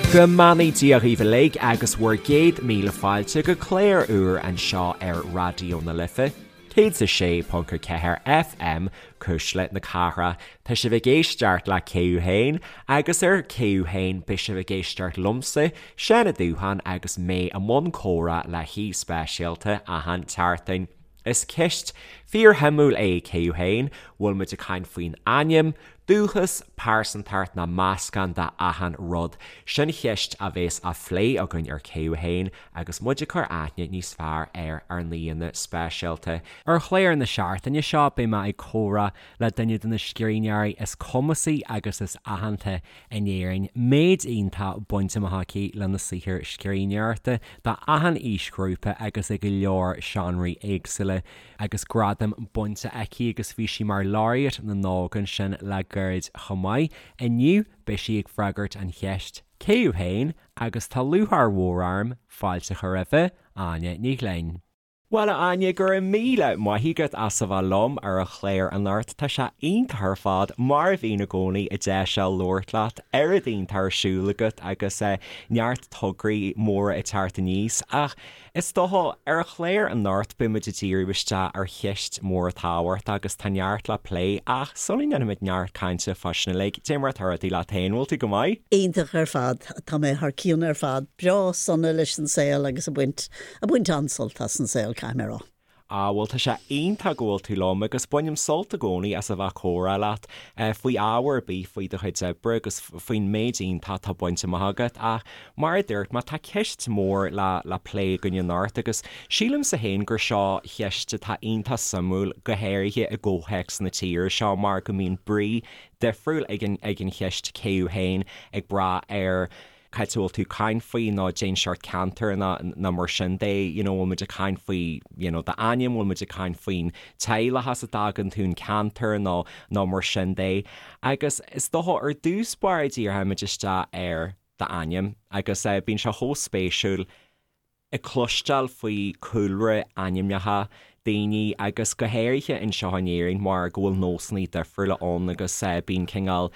Go mbeannaí Dia dhaoibh uilig agus bhur gcéad míle fáilte go clár úr anseo ar Raidió na Life, 106.4 FM, Cuisle na Cathrach. Tá sibh ag éisteacht le Cé Thú Féin agus ar Cé Thú Féin beidh sibh ag éisteacht liomsa, Seán Ó Dúcháin agus mé i mbun comhrá le haoi speisialta achan tseachtain. Is ceist fíorshuimiúil é Cé Thú Féin, bhfuil muid ag caint faoin ainm, dúchas, pearsantacht nó meascán de achan rud? Sin cheist a bhéas á phlé againn ar Cé Thú Féin agus muid ag cur aithne níos fearr ar ár n-aíonna speisialta. Ar chlár na seachtaine seo beidh mé ag comhrá le duine de na scríbhneoirí is cumasaí agus is aitheanta in Éirinn, méid iontach bainte amach aici lena saothar scríbhneoireachta do achan aoisghrúpa agus i go leor seánraí éagsúla, agus gradaim bainte aici agus bhí sí mar Laureate na nÓg ansin le gairid chomh maith. Inniu beidh sí ag freagairt an cheist 'Cé thú féin? agus tá lúcháir mhór orm fáilte a chur roimhe, Áine Ní Ghlinn. Bhuel, a Áine, go raibh míle maith agat as a bheith liom ar an chlár anocht. Tá sé iontach ar fad, mar a bhíonn i gcónaí, an deis seo labhairt leat, oiread iontach ar siúl agat agus neart tograí móra ag teacht aníos. Ach is dócha, ar an chlár anocht beidh muid ag díriú isteach ar cheist mhór tábhachtach agus tá neart le plé ach sula ndéanfaimid neart cainte fá sin uilig, cad é mar atá rudaí leat féin, bhfuil tú go maith? Iontach ar fad. Tá mé thar cionn ar fad. Breá sona leis an saol agus ag baint Ag baint an-sult as an saol, caithfidh mé a rá. Ah, bhuel, tá sé iontach go bhfuil tú liom agus bainim sult i gcónaí as a bheith ag comhrá leat faoi ábhar ar bith, faoi do chuid oibre agus faoin méid iontach atá bainte amach agat. Ach mar a dúirt mé, tá ceist mhór le le plé againn anocht agus sílimse féin gur seo cheist atá iontach suimiúil, go háirithe i gcomhthéacs na tíre seo mar go mbíonn brí difriúil ag an ag an cheist cé thú féin ag brath ar cá háit a bhfuil tú ag caint faoi nó cén seort ceantar nó nó mar sin de, you know, bhfuil muid ag caint faoi, you know, d'ainm, bhfuil muid ag caint faoin teaghlach as a dtagann tú, an ceantar nó nó mar sin de. Agus is dócha ar dtús báire díreoimid isteach ar d'ainm agus eh bíonn sé chomh spéisiúil ag cloisteáil faoi cúlra ainmneacha daoine agus go háirithe anseo in Éirinn mar go bhfuil nósanna difriúla ann agus bíonn cineál,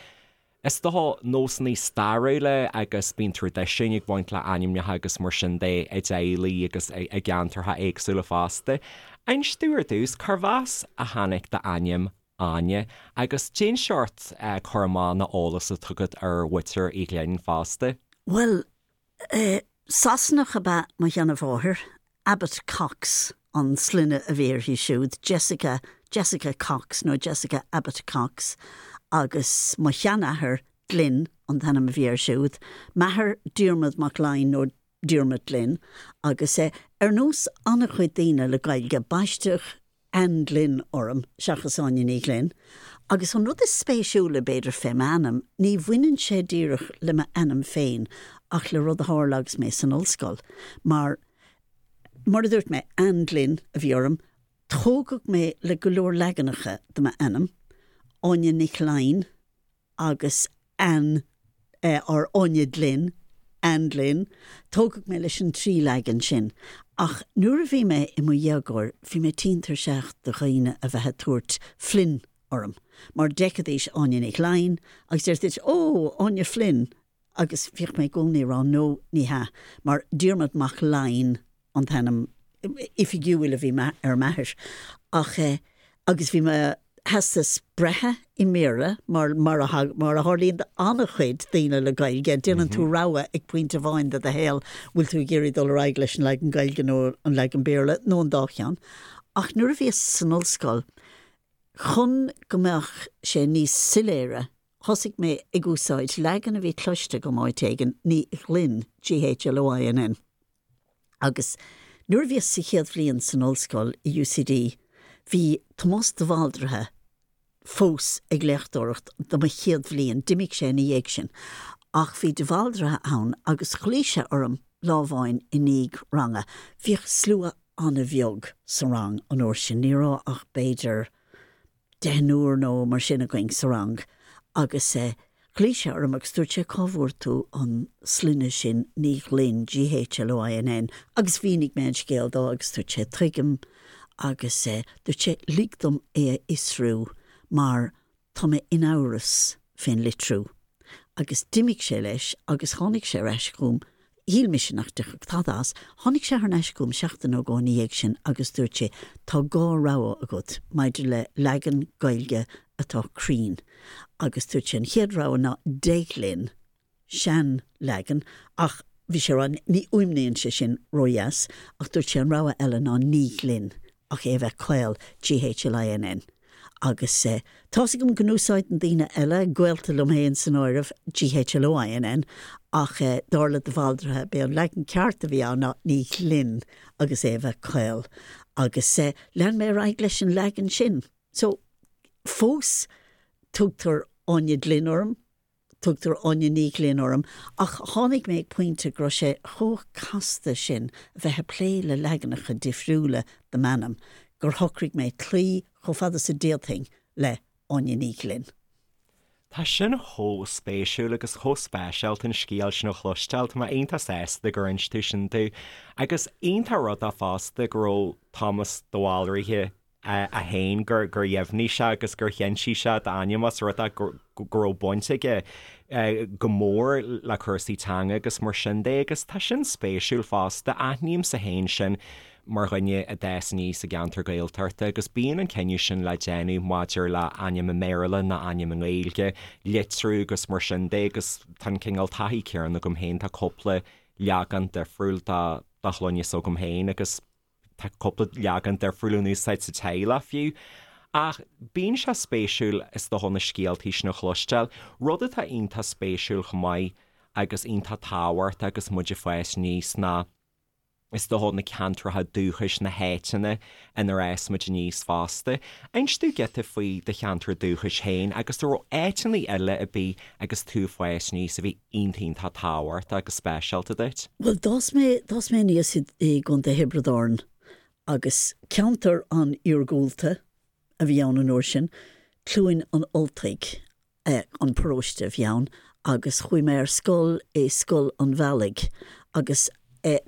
is dócha, nósanna stairiúla agus bíonn traidisiúin ag baint le ainmneacha agus mar sin de i dteaghlaigh agus i gceantartha éagsúla fosta. Inis domh ar dtús, cárbh as a tháinig d'ainm Áine, agus cén seort cur amach nó eolas atá agat ar mhuintir Uí Ghlinn fosta? Bhuel, Sasanach ab ea mo sheanmháthair, Abbott Cox an sloinne a bhí uirthi siúd, Jessica, Jessica Cox nó Jessica Abbott Cox, agus mo sheanathair, Glynn an t-ainm a bhí air siúd, m'athair Diarmuid Mac Fhloinn nó Diarmuid Glynn, agus ar nós an-chuid daoine le Gaeilge, baisteadh Anne Glynn orm seachas Áine Ní Ghlinn. Agus an rud is spéisiúla, b'fhéidir, fé m'ainm, ní bhaineann sé díreach le m'ainm féin ach le rud a tharla agus mé san ollscoil. Mar, mar a dúirt mé, Anne Glynn a bhí orm. Tógadh mé le go leor leaganacha de m'ainm, Áine Nic Fhloinn, agus Anne or Áine Glynn, Anne Glynn, tógadh mé leis an dtrí leagan sin. Ach nuair a bhí mé i mo dhéagóir, bhí mé tinn tuirseach de dhaoine a bheith ag tabhairt Flynn orm, mar d'fheicfidís Áine Nic Fhloinn agus déarfaidís, Ó, Áine Flynn! Agus bhíodh mé i gcónaí ag rá, No, ní hea, mar Diarmuid Mac Fhloinn an t-ainm oifigiúil a bhí ar m'athair. Ach eh, agus bhí mo theastas breithe i mBéarla, mar, mar a, mar a tharlaíonn d'an-chuid daoine le Gaeilge, déanann tú rogha ag pointe amháin de do shaol, bhfuil tú ag iarraidh dul ar aghaidh leis an leagan Gaeilge nó an leagan Béarla, nó an dá cheann. Ach nuair a bhíos san ollscoil, chun go mbeadh sé níos soiléire, thosaigh mé ag úsáid leagan a bhí cloiste agam áit éigin, Ní Ghlinn, G-H-L-O-I-N-N. Agus nuair a bhíos sa chéad bhliain san ollscoil i UCD, bhí Tomás de Bhaldraithe fós ag léachtóireacht do mo chéad bhliain, d'imigh sé ina dhiaidh sin, ach bhí de Bhaldraithe ann agus ghlaoigh sé orm lá amháin i ndiaidh ranga. Bhíodh slua an-bheag sa rang an uair sin, ní raibh ach b'fhéidir deichniúr nó mar sin againn sa rang agus ghlaoigh sé orm agus dúirt sé cá bhfuair tú an sloinne sin Ní Ghlinn, G-H-L-O-I-N-N, agus mhínigh mé an scéal dó agus dúirt sé tuigim agus dúirt sé lig dom é a fhiosrú mar tá mé in amhras fén litriú. Agus d'imigh sé leis agus tháinig sé ar ais chugam, shíl mise nach dtiocfadh tada as, tháinig sé thar n-ais chugam seachtain nó dhó ina dhiaidh sin agus dúirt sé, tá dhá rogha agat maidir le leagan Gaeilge atá cruinn. Agus dúirt sé an chéad rogha ná Deaghlinn, sean-leagan, ach bhí sé a rá, ní fhuaimníonn sé sin ródheas, ach dúirt sé an rogha eile ná Ní Ghlinn, ach é a bheith caol, G-H-L-I-N-N. Agus tá's agam go n-úsáideann daoine eile, gaolta liom féin san áireamh, G-H-L-O-I-N-N, ach dar le de Bhaldraithe, b'é an leagan ceart a bhí ann ná Ní Ghlinn agus é a bheith caol. Agus lean mé ar aghaidh leis an leagan sin. So, fós tugtar Áine Glynn orm, Tugtar Áine Ní Ghlinn orm, ach tháinig mé ag pointe go raibh sé chomh casta sin a bheith ag plé le leaganacha difriúla de m'ainm gur shocraigh mé cloí chomh fada is a d'fhéadfainn le Áine Ní Ghlinn. Tá sin chomh spéisiúil agus chomh speisialta an scéal sin a chloisteáil. Tá mé iontach sásta gur inis tú sin domh. Agus iontach rud é fosta go raibh Tomás de Bhalraithe é féin gur dheimhnigh sé agus gur chinntigh sé d'ainm os rud é go raibh baint aige go mór le cúrsaí teanga agus mar sin de agus tá sin spéisiúil fosta. Aithnímse féin sin mar dhuine a d'fhás aníos i gceantar Gaeltachta agus bíonn an cinneadh sin le déanamh maidir le ainm i mBéarla nó ainm i nGaeilge, litriú agus mar sin de agus tá an cineál taithí céanna agam féin, tá cúpla leagan difriúil de shloinne s'agam féin agus. Tá cúpla leagan difriúil in úsáid sa teaghlach fiú. Ach bíonn sé spéisiúil is dócha na scéaltaí sin a chloisteáil. Rud atá iontach spéisiúil chomh maith agus iontach tábhachtach agus muid ag fás aníos ná is dócha na ceantracha dúchais, na háiteanna inar fhás muid aníos fosta. Inis domh giota faoi do cheantar dúchais féin agus an raibh áiteanna eile ar bith agus tú ag fás aníos a bhí iontach iontach tábhachtach agus speisialta duit? Bhuel, d'fhás mé, d'fhás mé aníos i, i gContae Thiobraid Árann agus ceantar an-iargúlta a bhí ann an uair sin, Cluain an Ultaigh an paróiste a bhí ann agus chuaigh mé ar scoil i Scoil an Bhealaigh agus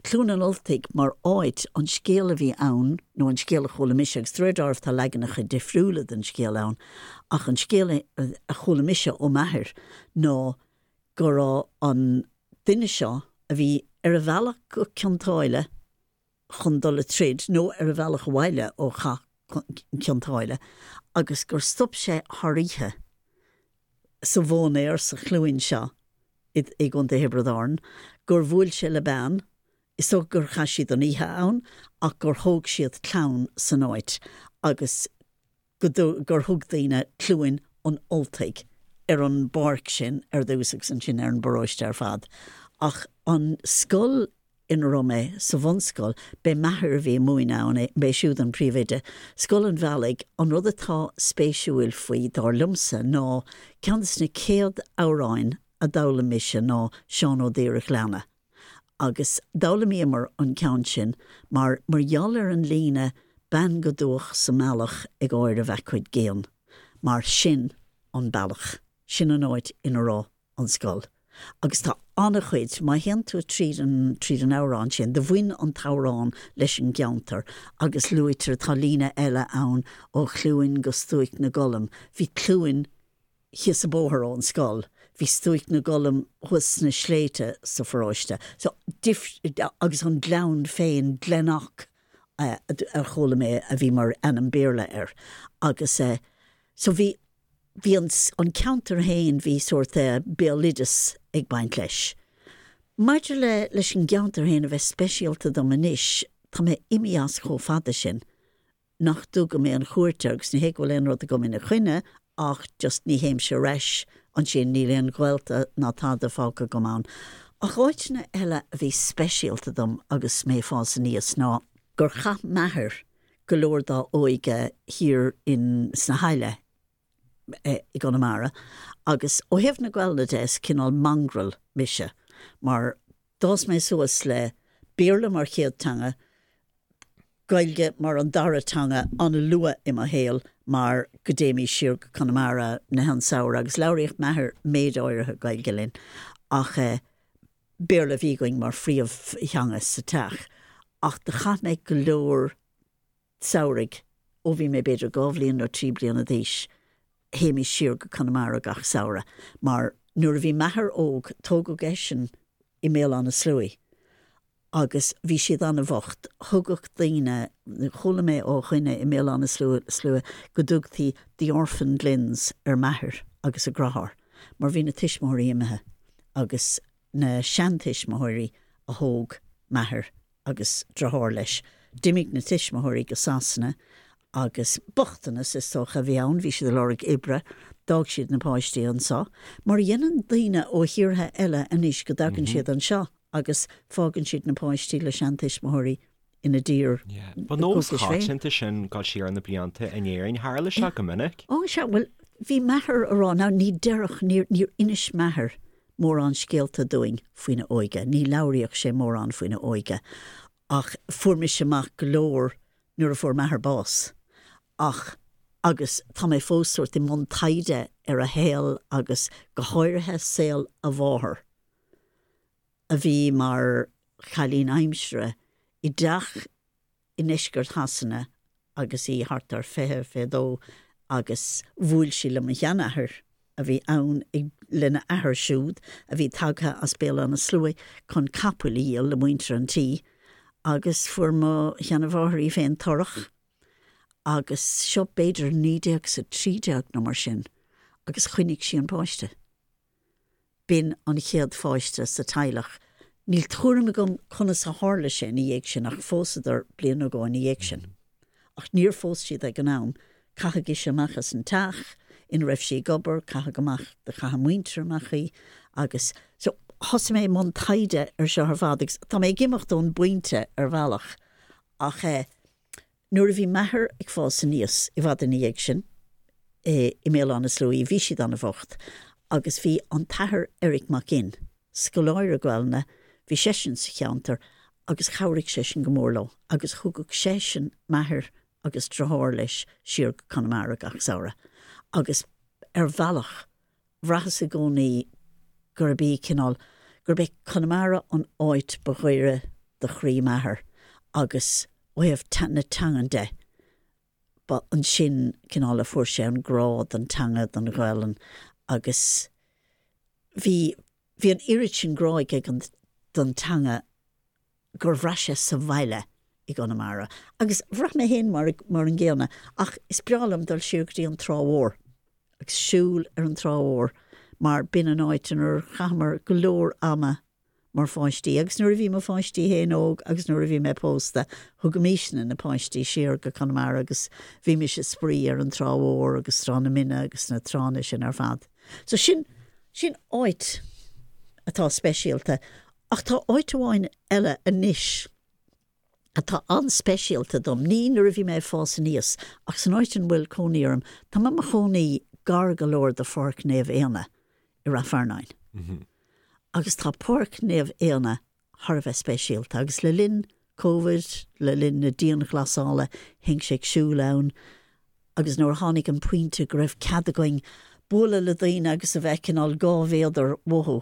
Cluain an Ultaigh mar áit, an scéal a bhí ann, nó an scéal a chuala mise, agus de réir dealraimh tá leaganacha difriúla den scéal ann, ach an scéal a chuala mise ó m'athair ná go raibh an duine seo a bhí ar a bhealach go Cionn tSáile chun dul a troid, nó ar a bhealach abhaile ó chath Chionn tSáile, agus gur stop sé thar oíche sa mhóinéar sa chluain seo i gContae Thiobraid Árann, gur bhuail sé le bean, is dócha gur chaith siad an oíche ann, ach gur thóg siad clann san áit agus go gur thug daoine Cluain an Ultaigh ar an bpáirc sin ar dtús agus ansin ar an bparóiste ar fad. Ach an scoil ina raibh mé sa bhunscoil, b'é m'athair a bhí ag múineadh ann, b'é siúd an príomhoide. Scoil an Bhealaigh, an rud atá spéisiúil faoi, dar liomsa, ná ceann de na céad amhráin a d'fhoghlaim mise ná Seán Ó Daoire Ghleanna. Agus d'fhoghlaimíomar an ceann sin mar mar gheall ar an líne 'Bean go dubhach sa mbealach ag áireamh a cuid géann', mar sin an bealach, sin an áit ina raibh an scoil. Agus tá an-chuid, má théann tú tríd an, tríd an amhrán sin, do bhain an t-amhrán leis an gceantar agus luaitear, tá líne eile ann ó Chluain go Stuaic na gColm, bhí Cluain thíos an bóthar ón scoil, bhí Stuaic na gColm thuas sna sléibhte sa pharóiste. So, agus an gleann féin, Glenock a chuala mé a bhí mar ainm Béarla air. Agus so bhí, bhí an, an ceantar féin, bhí sórt béaloideas ag baint leis. Maidir le, leis an gceantar féin a bheith speisialta dom anois, tá mé imithe as chomh fada sin nach dtugaim aon chuairt air agus ní hé go bhfuil aon rud agam ina choinne ach just ní théimse ar ais ansin, níl aon ghaolta ná tada fágtha agam ann. Ach áiteanna eile a bhí speisialta dom agus mé ag fás aníos ná gur chaith m'athair go leor dá óige thiar in sna hAille i gConamara agus ó thaobh na Gaelainne de is cineál mongrel mise mar D'fhás mé suas le Béarla mar chéad teanga, Gaeilge mar an dara teanga an-luath i mo shaol mar go dtéimís siar go Conamara na an samhradh agus labhraíodh m'athair méid áirithe Gaeilge linn ach Béarla a bhí againn mar phríomhtheanga sa teach. Ach do chaith mé go leor samhraidh ó bhí mé b'fhéidir 2 bhliain nó 3 bliana d'aois, théimís siar go Conamara gach samhradh mar. Nuair a bhí m'athair óg, tógadh eisean i mBéal Átha na Sluaighe agus bhí siad an-bhocht. Thugadh daoine, chuala mé ó dhuine i mBéal Átha na Sluaighe go dtugtaí 'the orphan Glynns' ar m'athair agus a dheartháir mar bhí na tuismitheoirí imithe agus na seantuismitheoirí a thóg m'athair agus deartháir leis. D'imigh na tuismitheoirí go Sasana agus bochtanas is dócha a bhí ann, bhí siad ag lorg oibre, d'fhág siad na páistí anseo, mar a dhéanann daoine ó thíortha eile anois go dtagann siad anseo agus fágann siad na páistí le seantuismitheoirí ina dtír Ba nós coitianta sin dul siar na blianta in Éirinn, tharla sé go minic. Ó sea, bhuel, bhí m'athair a rá, now ní déarfadh, níor, níor inis m'athair mórán scéalta dúinn faoina óige, ní labhraíodh sé mórán faoina óige, ach fuair mise amach go leor nuair a fuair m'athair bás. Ach, agus tá mé fós sórt i mbun taighde ar a shaol agus go háirithe saol a mháthar, a bhí mar chailín aimsire i dteach i ndeisceart Shasana agus í thart ar 20, 22 agus bhuail sí le mo sheanathair a bhí ann ag lena athair siúd a bhí tagtha as Béal Átha na Sluaighe chun capaill a dhíol le muintir an tí agus fuair mo sheanamháthair í féin torrach agus seo b'fhéidir 1913 nó mar sin agus choinnigh sí an páiste. B'in an chéad pháiste sa teaghlach. Níl tuairim agam conas a tharla sé ina dhiaidh sin ach phósadar bliain nó dhó ina dhiaidh sin. Ach níor phós siad ag an am. Caitheadh ise amach as an teach ina raibh sí ag obair, caitheadh amach, do chaith a muintir amach í agus so thosaigh mé i mbun taighde ar seo ar fad agus tá mé ag imeacht ón bpointe ar bhealach ach eh Nuair a bhí m'athair ag fás aníos, i bhfad ina dhiaidh sin, i mBéal Átha na Sluaighe, bhí siad an-bhocht agus bhí an tAthair Eric Mac Fhinn, scoláire Gaelainne, bhí seisean sa cheantar agus chabhraigh seisean go mór leo agus thugadh seisean m'athair agus deartháir leis siar go Conamara gach samhradh agus ar bhealach bhraitheas i gcónaí gurb í cineál, gurb é Conamara an áit ba ghaire do chroí m'athar agus ó thaobh na teangan de, ba ansin cineál a fuair sé an grá don teanga, don Ghaelainn agus bhí, bhí an oiread sin grá aige don teanga gur bhraith sé sa bhaile i gConamara. Agus bhraith mé féin mar mar an gcéanna, ach is breá liom dul siar go dtí an Trá Mhór agus siúl ar an Trá Mhór mar b'in an áit inar chaitheamar go leor ama mar pháistí. Agus nuair a bhí mo pháistí féin óg agus nuair a bhí mé pósta, thugaimisne na páistí siar go Conamara agus bhímis ag spraoi ar an Trá Mhór agus Trá na Mine agus na tránna sin ar fad. So sin, sin áit atá speisialta. Ach tá áit amháin eile anois atá an-speisialta dom, ní nuair a bhí mé ag fás aníos, ach san áit ina bhfuil cónaí orm. Tá mé i mo chónaí gar go leor do Pháirc Naomh Éanna i Rath Fearnáin. Agus tá Páirc Naomh Éanna thar a bheith speisialta agus le linn Covid, le linn na dianghlasála, théinnse ag siúl ann agus nuair a tháinig an pointe go raibh cead againn bualadh le daoine agus a bheith cineál 2 mhéadar uathu,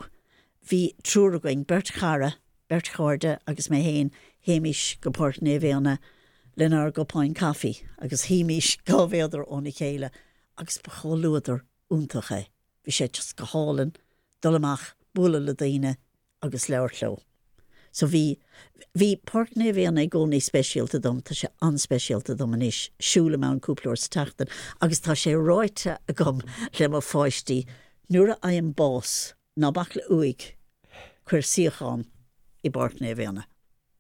bhí triúr againn, beirt chara, beirt chairde agus mé féin, théimis go Páirc Naomh Éanna lenár gcupáin caife agus shuímís 2 mhéadar óna chéile agus ba chomhluadar iontach é. Bhí sé just go hálainn dul amach, bualadh le daoine agus labhairt leo. So bhí, bhí Páirc Naomh Éanna i gcónaí speisialta dom, tá sé an-speisialta dom anois, siúlaim ann cúpla uair sa tseachtain agus tá sé ráite agam le mo pháistí, nuair a fhaighim bás, ná bac le uaigh, cuir suíochán i bPáirc Naomh Éanna.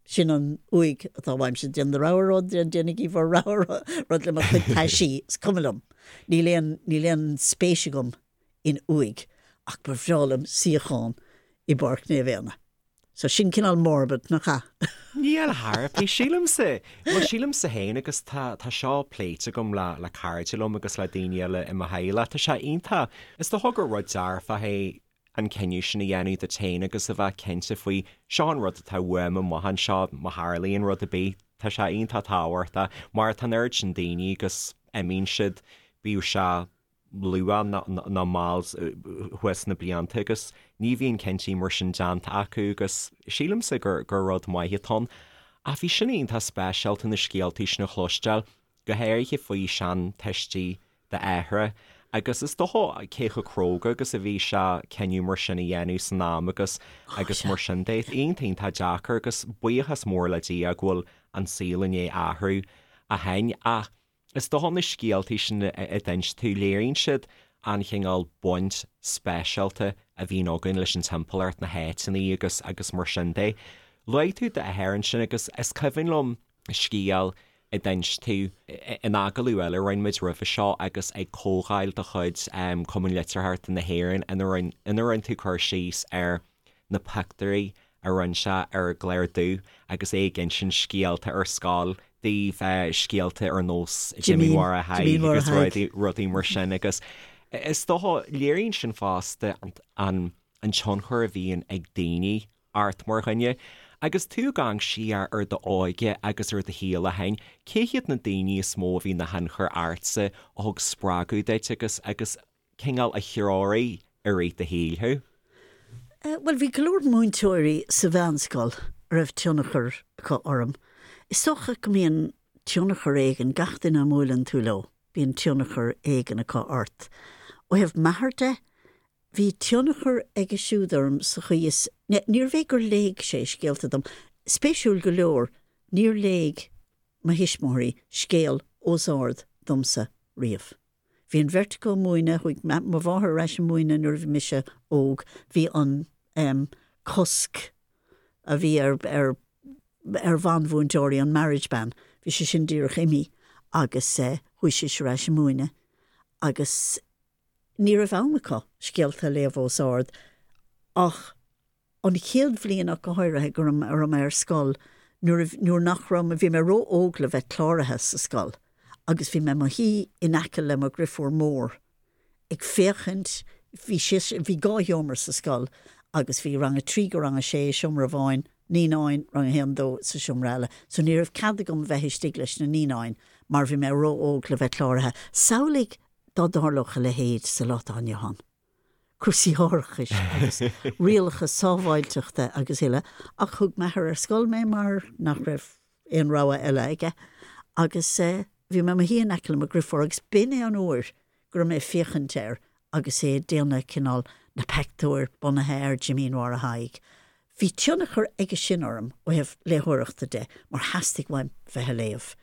Sin an uaigh atá uaimse, déan do rogha rud, déanaigí bhur rogha rud le mo chuid taisí, is cuma liom. Níl aon, níl aon spéis agam in uaigh ach ba bhreá liom suíochán i bPáirc Naomh Éanna. So sin cineál morbid, nach ea? Níl thar bith, sílimse. Bhuel, sílimse féin agus tá, tá seo pléite agam le, le cairde liom agus le daoine eile i mo theaghlach. Tá sé iontach. Is dócha gur rud dearfach é an cinneadh sin a dhéanamh duit féin agus a bheith cinnte faoi, seo an rud atá uaim amach anseo, má tharlaíonn rud ar bith, tá sé iontach tábhachtach mar tá an oiread sin daoine agus imíonn siad, bíodh sé luath nó mall thuas sna blianta agus ní bhíonn cinntí mar sin déanta acu agus sílimse gur gur rud maith atá ann. Ach bhí sin iontach speisialta na scéaltaí sin a chloisteáil, go háirithe faoi seantuistí d'athara. Agus is dócha cé chomh cróga agus a bhí sé cinneadh mar sin a dhéanamh san am agus agus mar sin de. Iontach iontach deacair agus buíochas mór le Dia go bhfuil an saol i ndiaidh athrú ó shin ach is dócha na scéaltaí sin a d'inis tú, léiríonn siad an chineál baint speisialta a bhíonn againn leis an timpeallacht, na háiteanna agus agus mar sin de. Luaigh tú d'athair ansin agus is cuimhin liom scéal a d'inis tú in agallamh eile a rinne muid roimhe seo agus ag comhdháil de chuid Cumann Litearthachta na hÉireann ina rinne tú cur síos ar na pictiúirí a rinne sé ar an gclár dubh agus é ag insint scéalta ar scoil daoibh, scéalta ar nós Jimín Mháire Thaidhg agus rudaí mar sin agus is dócha, léiríonn sin fosta an tionchar a bhíonn ag daoine ort mar dhuine. Agus tú ag amharc siar ar d'óige agus ar do shaol ó shin, cé hiad na daoine is mó a bhí ina thionchar ortsa, a thug spreagadh duit agus agus cineál a threoraigh i rith do shaoil thú? Bhuel, bhí go leor múinteoirí sa mheánscoil a raibh tionchar acu orm. Is dócha go mbíonn tionchar éigin, gach duine a mbuaileann tú leo, bíonn tionchar éigin acu ort. Ó thaobh m'athar de, bhí tionchar aige siúd orm sa chaoi is, níorbh é gur léigh sé scéalta dom, spéisiúil go leor, níor léigh mo thuismitheoirí scéal os ard domsa riamh. Bhí an bheirt acu ag múineadh, chuaigh mo mháthair ar ais ag múineadh nuair a bhí mise óg, bhí an em cosc a bhí ar ar ar bhanmhúinteoirí, an marriage ban, bhí sé sin díreach imithe agus eh chuaigh sise ar ais ag múineadh agus ní raibh am acu scéalta a léamh os ard ach An chéad bhliain ach go háirithe go raibh mé ar scoil nuair a nuair nach raibh mé, bhí mé ró-óg le bheith cláraithe sa scoil agus bhí mé i mo shuí in aice le mo dhriofúr mór ag féachaint, bhí sise, bhí 2 sheomra sa scoil agus bhí rang a 3 go rang a 6 i seomra amháin, naíonáin, rang a haon, dó sa seomra eile. So ní raibh cead agam bheith istigh leis na naíonáin mar bhí mé ró-óg le bheith cláraithe. Samhlaigh dá dtarlódh a leithéid sa lá atá inniu ann. cúrsaí árachais agus rialacha sábháilteachta agus uile, ach thug m'athair ar scoil mé mar nach raibh aon rogha eile aige agus bhí mé i mo shuí in aice le mo dhriofúr agus b'in é an uair go raibh mé ag féachaint air agus é ag déanamh cineál na peictiúir bunaithe ar Jimín Mháire Thaidhg. Bhí tionchar aige sin orm ó thaobh léitheoireachta de mar theastaigh uaim bheith a léamh.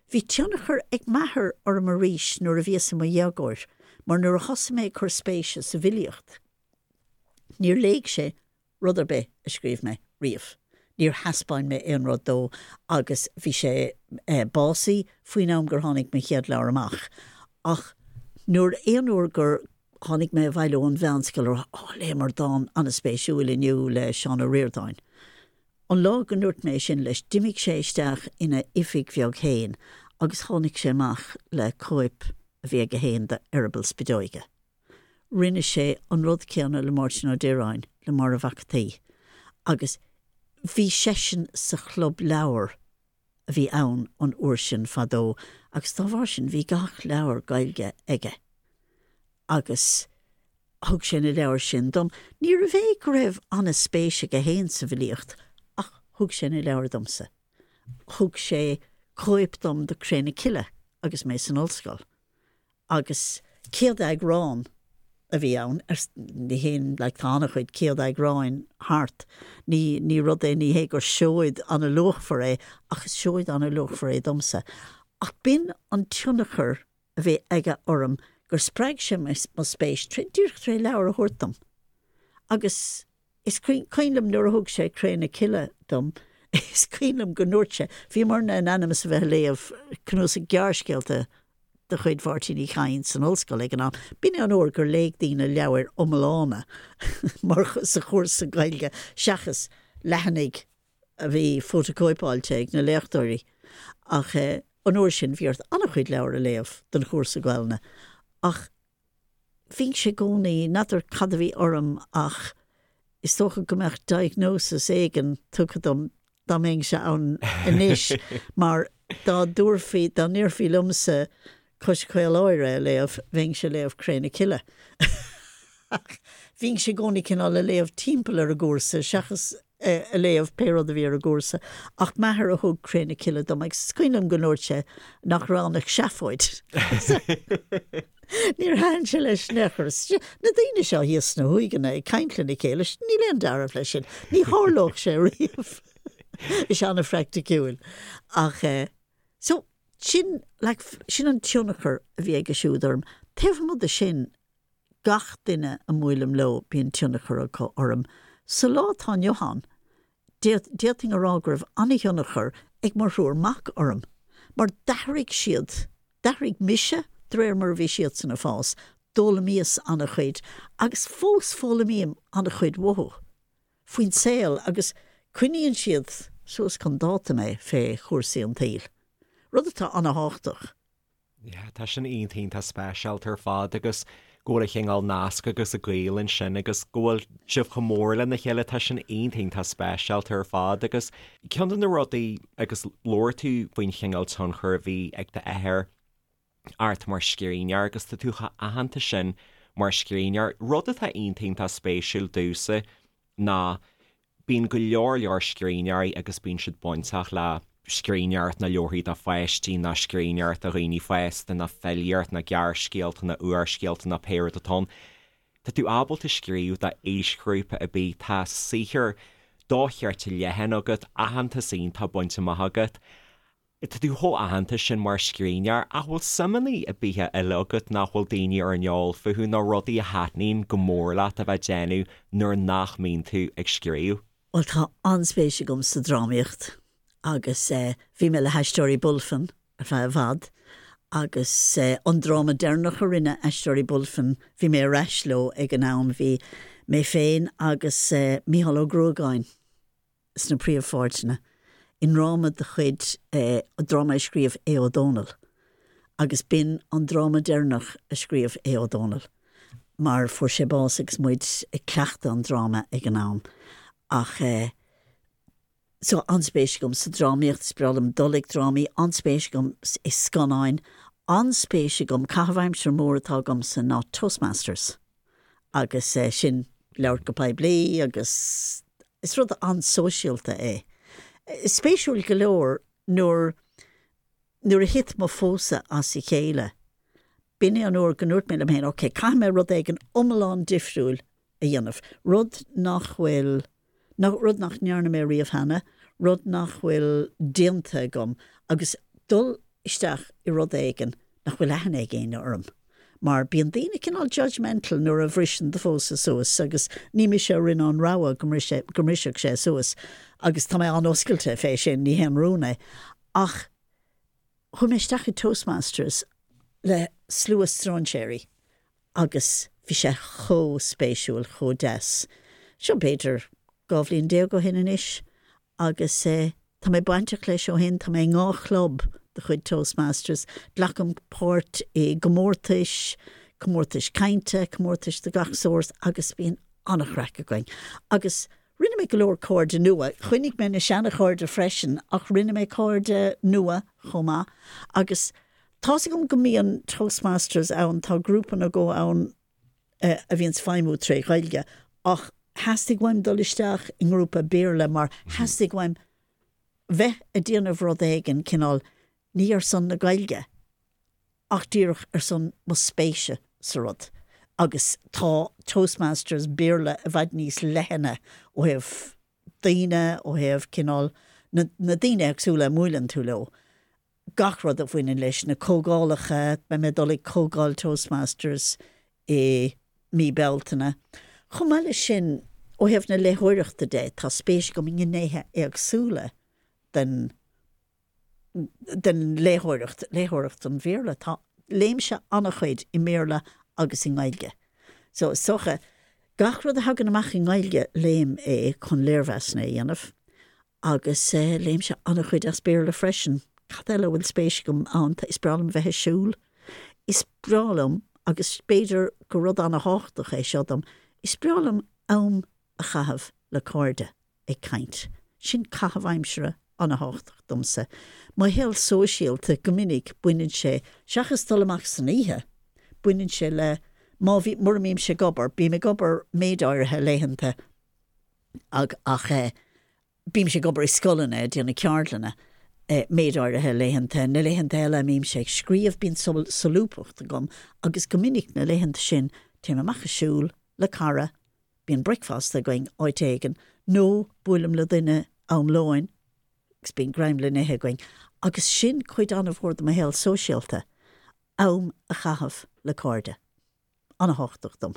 Bhí tionchar ag m'athair orm arís nuair a bhíos i mo dhéagóir mar nuair a thosaigh mé ag cur spéise sa bhfilíocht, níor léigh sé rud ar bith a scríobh mé riamh. Níor thaispeáin mé aon rud dó agus bhí sé básaithe faoin am gur tháinig mo chéad leabhar amach. Ach nuair, aon uair gur Tháinig mé abhaile ón mheánscoil a rá, Ó, léamar dán an-spéisiúil inniu le Seán Ó Ríordáin. An lá go ndúirt mé sin leis, d'imigh sé isteach ina oifig bheag féin agus tháinig sé amach le cóip a bhí aige féin de Eireaball Spideoige. Rinne sé an rud céanna le Máirtín Ó Direáin, le Máire Mhac an tSaoi. Agus bhí seisean sa chlub leabhar a bhí ann an uair sin fadó agus dá bharr sin bhí gach leabhar Gaeilge aige agus thug sé na leabhair sin dom. Níorbh é go raibh an-spéis aige féin sa bhfilíocht ach thug sé na leabhair domsa. Thug sé cóip dom de Cré na Cille agus mé san ollscoil. Agus céad eagrán a bhí ann, ní haon, like, tá an-chuid céad eagráin thart, ní, ní rud é, ní hé gur seoid an-luachmhar é, ach is seoid an-luachmhar é domsa. Ach b'in an tionchar a bhí aige orm, gur spreag sé mo spéis, díreach tré leabhar a thabhairt dom. Agus Is cuimhin liom nuair a thug sé Cré na Cille dom, is cuimhin liom go ndúirt sé, bhíomarna in ainm is a bheith ag léamh cnuasach gearrscéalta de chuid Mháirtín Uí Chadhain san ollscoil ag an am. B'in é an uair gur léigh daoine leabhair iomlána mar sa chúrsa Gaeilge seachas leathanaigh a bhí fótacóipeáilte ag na léachtóirí. Ach an uair sin bhí ort an-chuid leabhar a léamh don chúrsa Gaelainne. Ach Bhínnse i gcónaí, n'fheadar cad a bhí orm ach is dócha go mbeadh diagnosis éigin tugtha dom dá mbeinnse ann anois mar dá dtabharfaí, dá ndéarfaí liomsa Cois Caoláire a léamh, bheinnse ag léamh Cré na Cille. Ach bhínnse i gcónaí cineál ag léamh timpeall ar an gcúrsa seachas. a léamh pé rud a bhí ar an gcúrsa, ach m'athair a thug Cré na Cille dom agus is cuimhin liom go ndúirt sé nach raibh ann ach seafóid. Níor thaitin sé leis in aon chor. Na daoine seo thíos sna huaigheanna ag caint lena chéile, níl aon dealramh leis sin. Ní tharlódh sé riamh. Bhí sé an-phraiticiúil. Ach eh, so, sin, like, sin an tionchar a bhí aige siúd orm. Taobh amuigh de sin, gach duine a mbuailim leo, bíonn tionchar acu orm. Sa lá atá inniu ann, d'fhéadfainn a rá go raibh an-thionchar ag mo thriúr mac orm, mar d'athraigh siad, d'athraigh mise de réir mar a bhí siadsan ag fás, d'fhoghlaimíos an-chuid agus fós foghlaimím an-chuid uathu faoin saol agus coinníonn siad suas chun dáta mé fé chúrsaí an tsaoil, rud atá an-thábhachtach. Yeah, tá sin iontach iontach speisialta ar fad agus go bhfuil an cineál nasc agus an gaol ansin agus go bhfuil sibh chomh mór lena chéile, tá sin iontach iontach speisialta ar fad agus ceann de na rudaí agus labhair tú faoin chineál tionchar a bhí ag d'athair ort mar scríbhneoir agus tá tú chomh aitheanta sin mar scríbhneoir, rud atá iontach iontach spéisiúil domhsa ná bíonn go leor leor scríbhneoirí agus bíonn siad bainteach le scríbhneoireacht na leabharthaí do pháistí nó scríbhneoireacht do dhaoine fásta nó filíocht nó gearrscéalta nó úrscéalta nó pé rud atá ann. Tá tú ábalta scríobh do aoisghrúpa ar bith, tá saothar dochreidte leathan agat, aitheantas iontach bainte amach agat. Tá tú chomh aitheanta sin mar scríbhneoir, ach bhfuil suimeanna ar bith eile agat nach bhfuil daoine ar an eol fúthu nó rudaí a thaitníonn go mór leat a bheith ag déanamh nuair nach mbíonn tú ag scríobh? Bhuel, tá an-spéis agam sa drámaíocht agus bhí mé le hAisteoirí Bulfin ar feadh i bhfad agus an dráma deireanach a rinne Aisteoirí Bulfin, bhí mé ar ais leo ag an am, bhí mé féin agus Mícheál Ó Gruagáin. sna príomhpháirteanna i ndráma de chuid, dráma a scríobh Aodh Ó Dónaill agus b'in an dráma deireanach a scríobh Aodh Ó Dónaill mar fuair sé bás agus muid ag cleachtadh an dráma ag an am. Ach eh, so an-spéis agam sa drámaíocht, is breá liom dul ag drámaí, an-spéis agam i scannáin, an-spéis agam, caitheamh aimsire mór atá agamsa ná Toastmasters. agus sin labhairt go poiblí agus is rud an-sóisialta é. Spéisiúil go leor nuair nuair a thit mo phósadh as a chéile, b'in é an uair go ndúirt mé liom féin, ok, caithfidh mé rud éigin iomlán difriúil a dhéanamh, rud nach bhfuil, rud nach ndearna mé riamh cheana, rud nach bhfuil déanta agam agus dul isteach i rud éigin nach bhfuil aithne ag éinne orm. Mar bíonn daoine cineál judgemental nuair a bhriseann do phósadh suas agus ní mise a rinne an rogha go go mbrisfeadh sé suas agus tá mé an-oscailte fé sin, ní haon rún é. Ach chuaigh mé isteach i Toastmasters le slua stróinséirí agus bhí sé chomh spéisiúil, chomh deas. Seo b'fhéidir 12 bhliain ó shin anois agus tá mé bainteach leis ó shin, tá mé i ndhá chlub de chuid Toastmasters, glacaim páirt i gcomórtais, comórtais cainte, comórtais de gach sórt agus bíonn an-chraic againn. Agus rinne mé go leor cairde nua, choinnigh mé na seana-chairde freisin ach rinne mé cairde nua chomh maith agus tá's agam go mbíonn Toastmasters ann, tá grúpa nó dhó ann a bhíonns feidhmiú tré Ghaeilge ach theastaigh uaim dul isteach i ngrúpa Béarla mar theastaigh uaim bheith ag déanamh rud éigin cineál ní ar son na Gaeilge ach díreach ar son mo spéise sa rud agus tá Toastmasters Béarla i bhfad níos leithne ó thaobh daoine, ó thaobh cineál na na daoine éagsúla a mbuaileann tú leo. gach rud a bhaineann leis na comhdhálacha, beidh mé ag dul ag comhdháil Toastmasters i mí Bealtaine. Chomh maith leis sin, ó thaobh na léitheoireachta de, tá spéis agam i ngnéithe éagsúla den den léitheoireacht, léitheoireacht an Bhéarla. Tá, léimse an-chuid i mBéarla agus i nGaeilge. So, is dócha, gach rud a thagann amach i nGaeilge, léim é chun léirmheasanna a dhéanamh. Agus léimse an-chuid as Béarla freisin. Cad eile a bhfuil spéis agam ann? Is breá liom bheith ag siúl. Is breá liom, agus b'fhéidir gur rud an-thábhachtach é seo dom, is breá liom am a chaitheamh le cairde ag caint. Sin caitheamh aimsire an-thábhachtach domsa. Mo shaol sóisialta, go minic, baineann sé, seachas dul amach san oíche, baineann sé le, má bhí, mura mbímse ag obair, bím ag obair méid áirithe laethanta, ach eh. Bímse ag obair i scoileanna, ag déanamh ceardlanna, méid áirithe laethanta. Na laethanta eile a mbímse ag scríobh, bíonn solúbthacht agam agus go minic na laethanta sin téim amach ag siúl le cara, bíonn bricfeasta againn áit éigin nó buailim le duine am lóin agus bíonn greim le n-ithe againn. Agus sin cuid an-mhór de mo shaol sóisialta, am a chaitheamh le cairde. An-thábhachtach dom.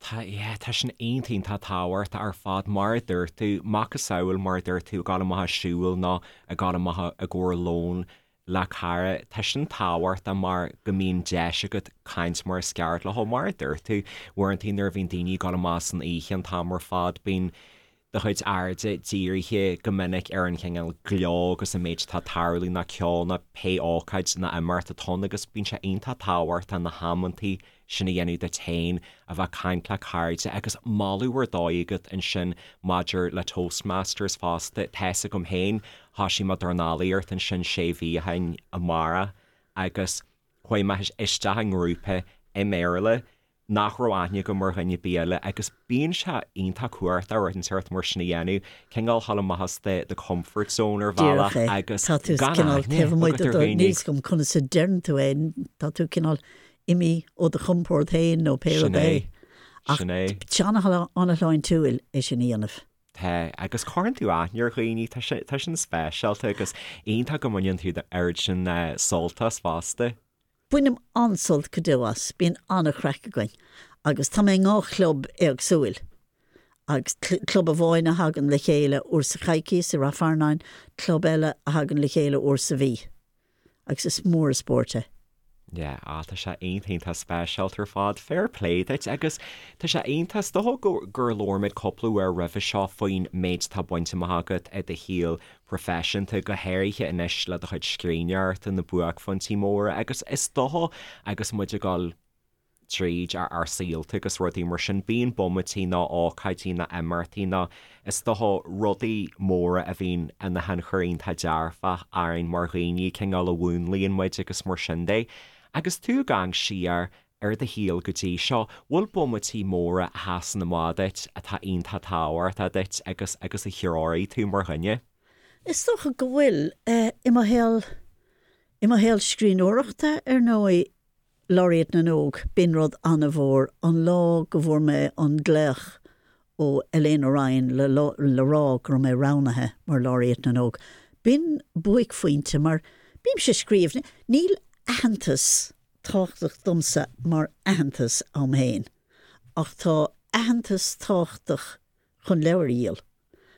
Tá, yeah, tá sin iontach, iontach tábhachtach ar fad, mar a dúirt tú, macasamhail mar a dúirt tú, ag dul amach ag siúl nó ag dul amach i gcomhair lóin le cara, tá sin tábhachtach mar go mbíonn deis agat caint mar is ceart leo, mar a dúirt tú, uaireanta nuair a bhíonn daoine ag dul amach san oíche an t-am ar fad, bíonn do chuid airde dírithe go minic ar an chineál gleo agus an méid atá ag tarlú nó ceol nó pé ócáid nó imeacht atá ann agus bíonn sé iontach tábhachtach na hamantaí sin a dhéanamh duit féin, a bheith ag caint le cairde agus moladh ar dóigh agat ansin maidir le Toastmasters fosta. Tá's agam féin, thoisigh mé dornálaíocht ansin sé mhí ó shin amárach agus chuaigh mé isteach i ngrúpa i mBéarla nach raibh aithne agam ar dhuine ar bith eile agus bíonn sé iontach cumhachtach rud inteacht mar sin a dhéanamh, cineál dhul amach as do do comfort zone ar bhealach Díreach é. agus Tá tú gan cineál aithne taobh amuigh agat de ar do, dhaoine. níl 'fhios agam conas a deireann tú é, tá tú cineál imithe ó do chompord féin nó pé Sin rud é. é. Ach Sin é. tá sé an-shláintiúil é sin a dhéanamh. Tá, agus cuireann tú aithne ar dhaoine, tá sé, tá sin speisialta agus iontach go mbaineann tú oiread sin sult as fosta. Bainim an-sult go deo as, bíonn an-chraic againn agus tá mé i ndhá chlub éagsúil agus club amháin a thagann le chéile uair sa choicíos i Rath Fearnáin, club eile a thagann le chéile uair sa mhí agus is mór an spórt é. Yeah, ah tá sé iontach iontach speisialta ar fad, fair play duit agus tá sé iontach, is dócha gur labhair muid cúpla uair roimhe seo faoin méid atá bainte amach agat i do shaol proifisiúnta, go háirithe anois le do chuid scríbhneoireachta, na buaicphointí móra agus is dócha agus muid ag dul tríd ár saolta agus rudaí mar sin, bíonn bomaití nó ócáidí nó imeachtaí nó is dócha rudaí móra a bhíonn ina thionchar iontach dearfach orainn mar dhaoine, cineál a mhúnlaíonn muid agus mar sin de. Agus tú ag amharc siar ar do shaol go dtí seo, bhfuil bomaití móra a sheasann amach duit atá iontach tábhachtach duit agus agus a threoraigh tú mar dhuine? Is dócha go bhfuil. I mo shaol, i mo shaol scríbhneoireachta, ar ndóigh, Laureate na nÓg, b'in rud an-mhór, an lá go bhfuair mé an glaoch ó Elaine Ryan le le rá go raibh mé roghnaithe mar Laureate na nÓg. B'in buaicphointe mar bímse ag scríobh, níl aitheantas tábhachtach domsa mar aitheantas a'm féin, ach tá aitheantas tábhachtach chun leabhair a dhíol,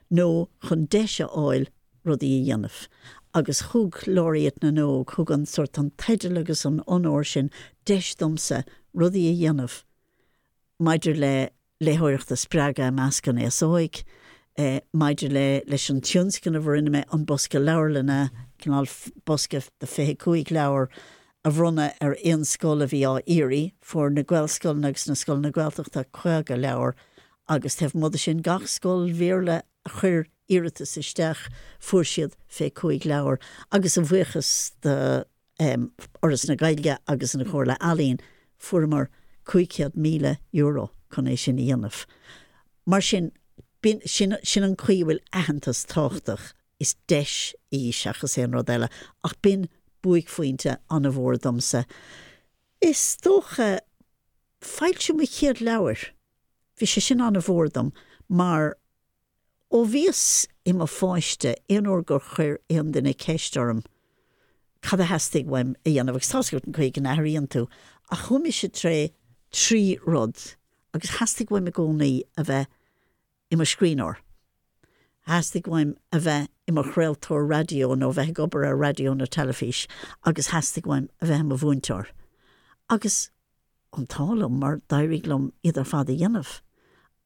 nó chun deis a fháil rudaí a dhéanamh. Agus thug Laureate na nÓg, thug an sórt, an teideal agus an onóir sin deis domsa rudaí a dhéanamh maidir le léitheoireacht a spreagadh i measc an aos óig, maidir le leis an tionscnamh a rinne mé, an Bosca Leabharlainne, cineál bosca de 25 leabhar a bhronnadh ar aon scoil a bhí á iarraidh. Fuair na Gaelscoileanna agus na scoileanna Gaeltachta 50 leabhar agus taobh amuigh de sin gach scoil Bhéarla a chuir iarratas isteach fuair siad 25 leabhar agus a bhuíochas do Fhoras na Gaeilge agus an Chomhairle Ealaíon, fuaireamar €500,000 chun é sin a dhéanamh. Mar sin, b'in, sin, sin an chaoi a bhfuil aitheantas tábhachtach, is deis í seachas aon rud eile, ach b'in buaicphointe an-mhór domsa. Is dócha, foilsiú mo chéad leabhair, bhí sé sin an-mhór dom mar Ó bhíos i mo pháiste, aon uair gur chuir aon duine ceist orm cad a theastaigh uaim a dhéanamh, agus tá's agat an chaoi go n-athraíonn tú, ach chuaigh mise tré thrí rud agus theastaigh uaim i gcónaí a bheith i mo scríbhneoir, theastaigh uaim a bheith i mo chraoltóir raidió nó a bheith ag obair ar raidió nó teilifís agus theastaigh uaim a bheith i mo mhúinteoir. Agus an t-ádh liom mar d'éirigh liom iad ar fad a dhéanamh.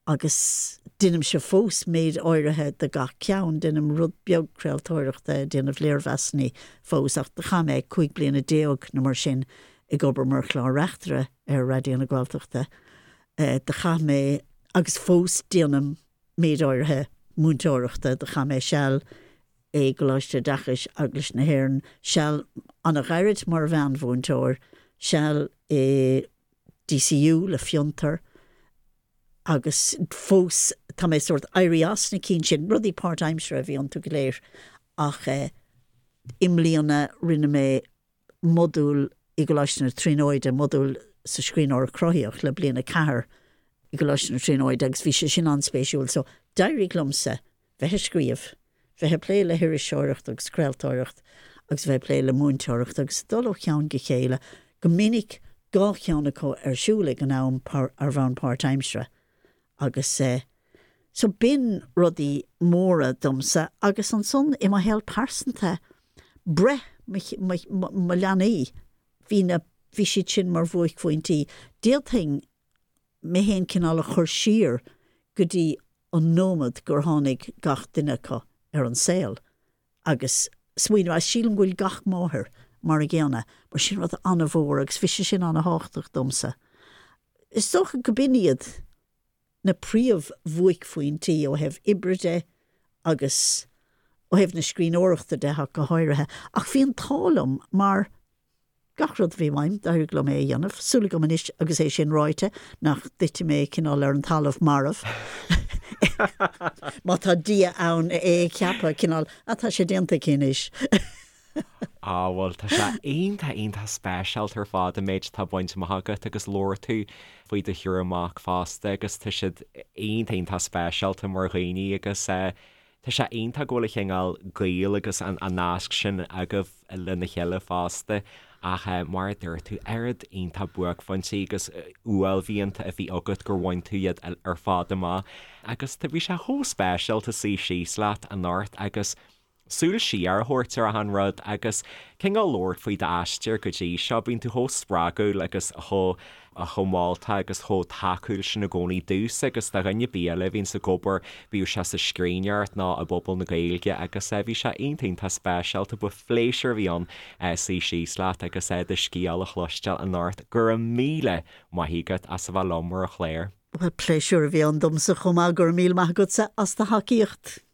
Agus deinimse fós méid áirithe de gach ceann, deinim rud beag craoltóireachta, déanamh léirmheasanna fós, ach do chaith mé 15 bliana nó mar sin ag obair mar chlár-reachtaire ar Raidió na Gaeltachta. Do chaith mé, agus fós déanaim méid áirithe múinteoireachta, do chaith mé seal i gColáiste Oideachais Eaglais na hÉireann, seal an-ghairid mar mheánmhúinteoir, seal i DCU le Fiontar, agus fós. Tá mé sórt éirí as na cinn sin, rudaí páirtaimseartha a bhí iontu go léir ach i mbliana rinne mé modúl i gColáiste na Tríonóide, modúl sa scríbhneoireacht chruthaitheach le bliain 4 i gColáiste na Tríonóide agus bhí sé sin an-spéisiúil. So d'éirigh liomsa bheith ag scríobh, bheith ag plé le hiriseoireacht agus craoltóireacht agus bheith ag plé le múinteoireacht agus dul ó cheann go chéile, go minic dhá cheann acu ar siúl ag an am ar bhonn páirtaimseartha. Agus eh so b'in rudaí móra domsa agus ansan i mo shaol pearsanta, breith mo mo mo leanaí, bhí na bhí siad sin mar bhuaicphointí. D'fhéadfainn mé fhéin cineál a chur siar go dtí an nóiméad gur tháinig gach duine acu ar an saol agus smaoineamh, agus sílim go bhfuil gach máthair mar a gcéanna, mar sin rud an-mhór agus bhí sé sin an-thábhachtach domsa. Is dócha go b'in iad na príomh-bhuaicphointí ó thaobh oibre de agus ó thaobh na scríbhneoireachta de ach go háirithe. Ach bhí an t-ádh liom mar gach rud a bhí uaim, d'éirigh liom é a dhéanamh. Súil agam anois agus é sin ráite nach dtitfidh mé cineál ar an talamh marbh. Má tá Dia ann é a cheapadh, cineál, ah tá sé déanta aici anois. Á bhuel, tá sé iontach, iontach speisialta ar fad an méid atá bainte amach agat agus labhair tú faoi do thriúr mac fosta agus tá siad iontach, iontach speisialta mar dhaoine agus tá sé iontach go bhfuil an cineál gaol agus an nasc sin agaibh lena chéile fosta ach mar a dúirt tú, oiread iontach buaicphointí agus uaillmhianta a bhí agat gur bhain tú iad ar fad amach agus bhí sé chomh speisialta suí síos leat anocht agus súil siar a thabhairt ar achan rud agus cineál labhairt faoi d'aistear go dtí seo. Bíonn tú chomh spreagúil agus chomh chomh moltach agus chomh tacúil sin i gcónaí domhsa agus do dhuine ar bith eile a bhíonns ag obair, bíodh sé sa scríbhneoireacht nó i bpobal na Gaeilge agus bhí sé iontach iontach speisialta. Ba phléisiúr a bhí ann suí síos leat agus do scéal a chloisteáil anocht. Go raibh míle maith agat as a bheith liom ar an chlár. Bhuel, pléisiúr a bhí ann domsa chomh maith. Go raibh míle maith agatsa as do thacaíocht.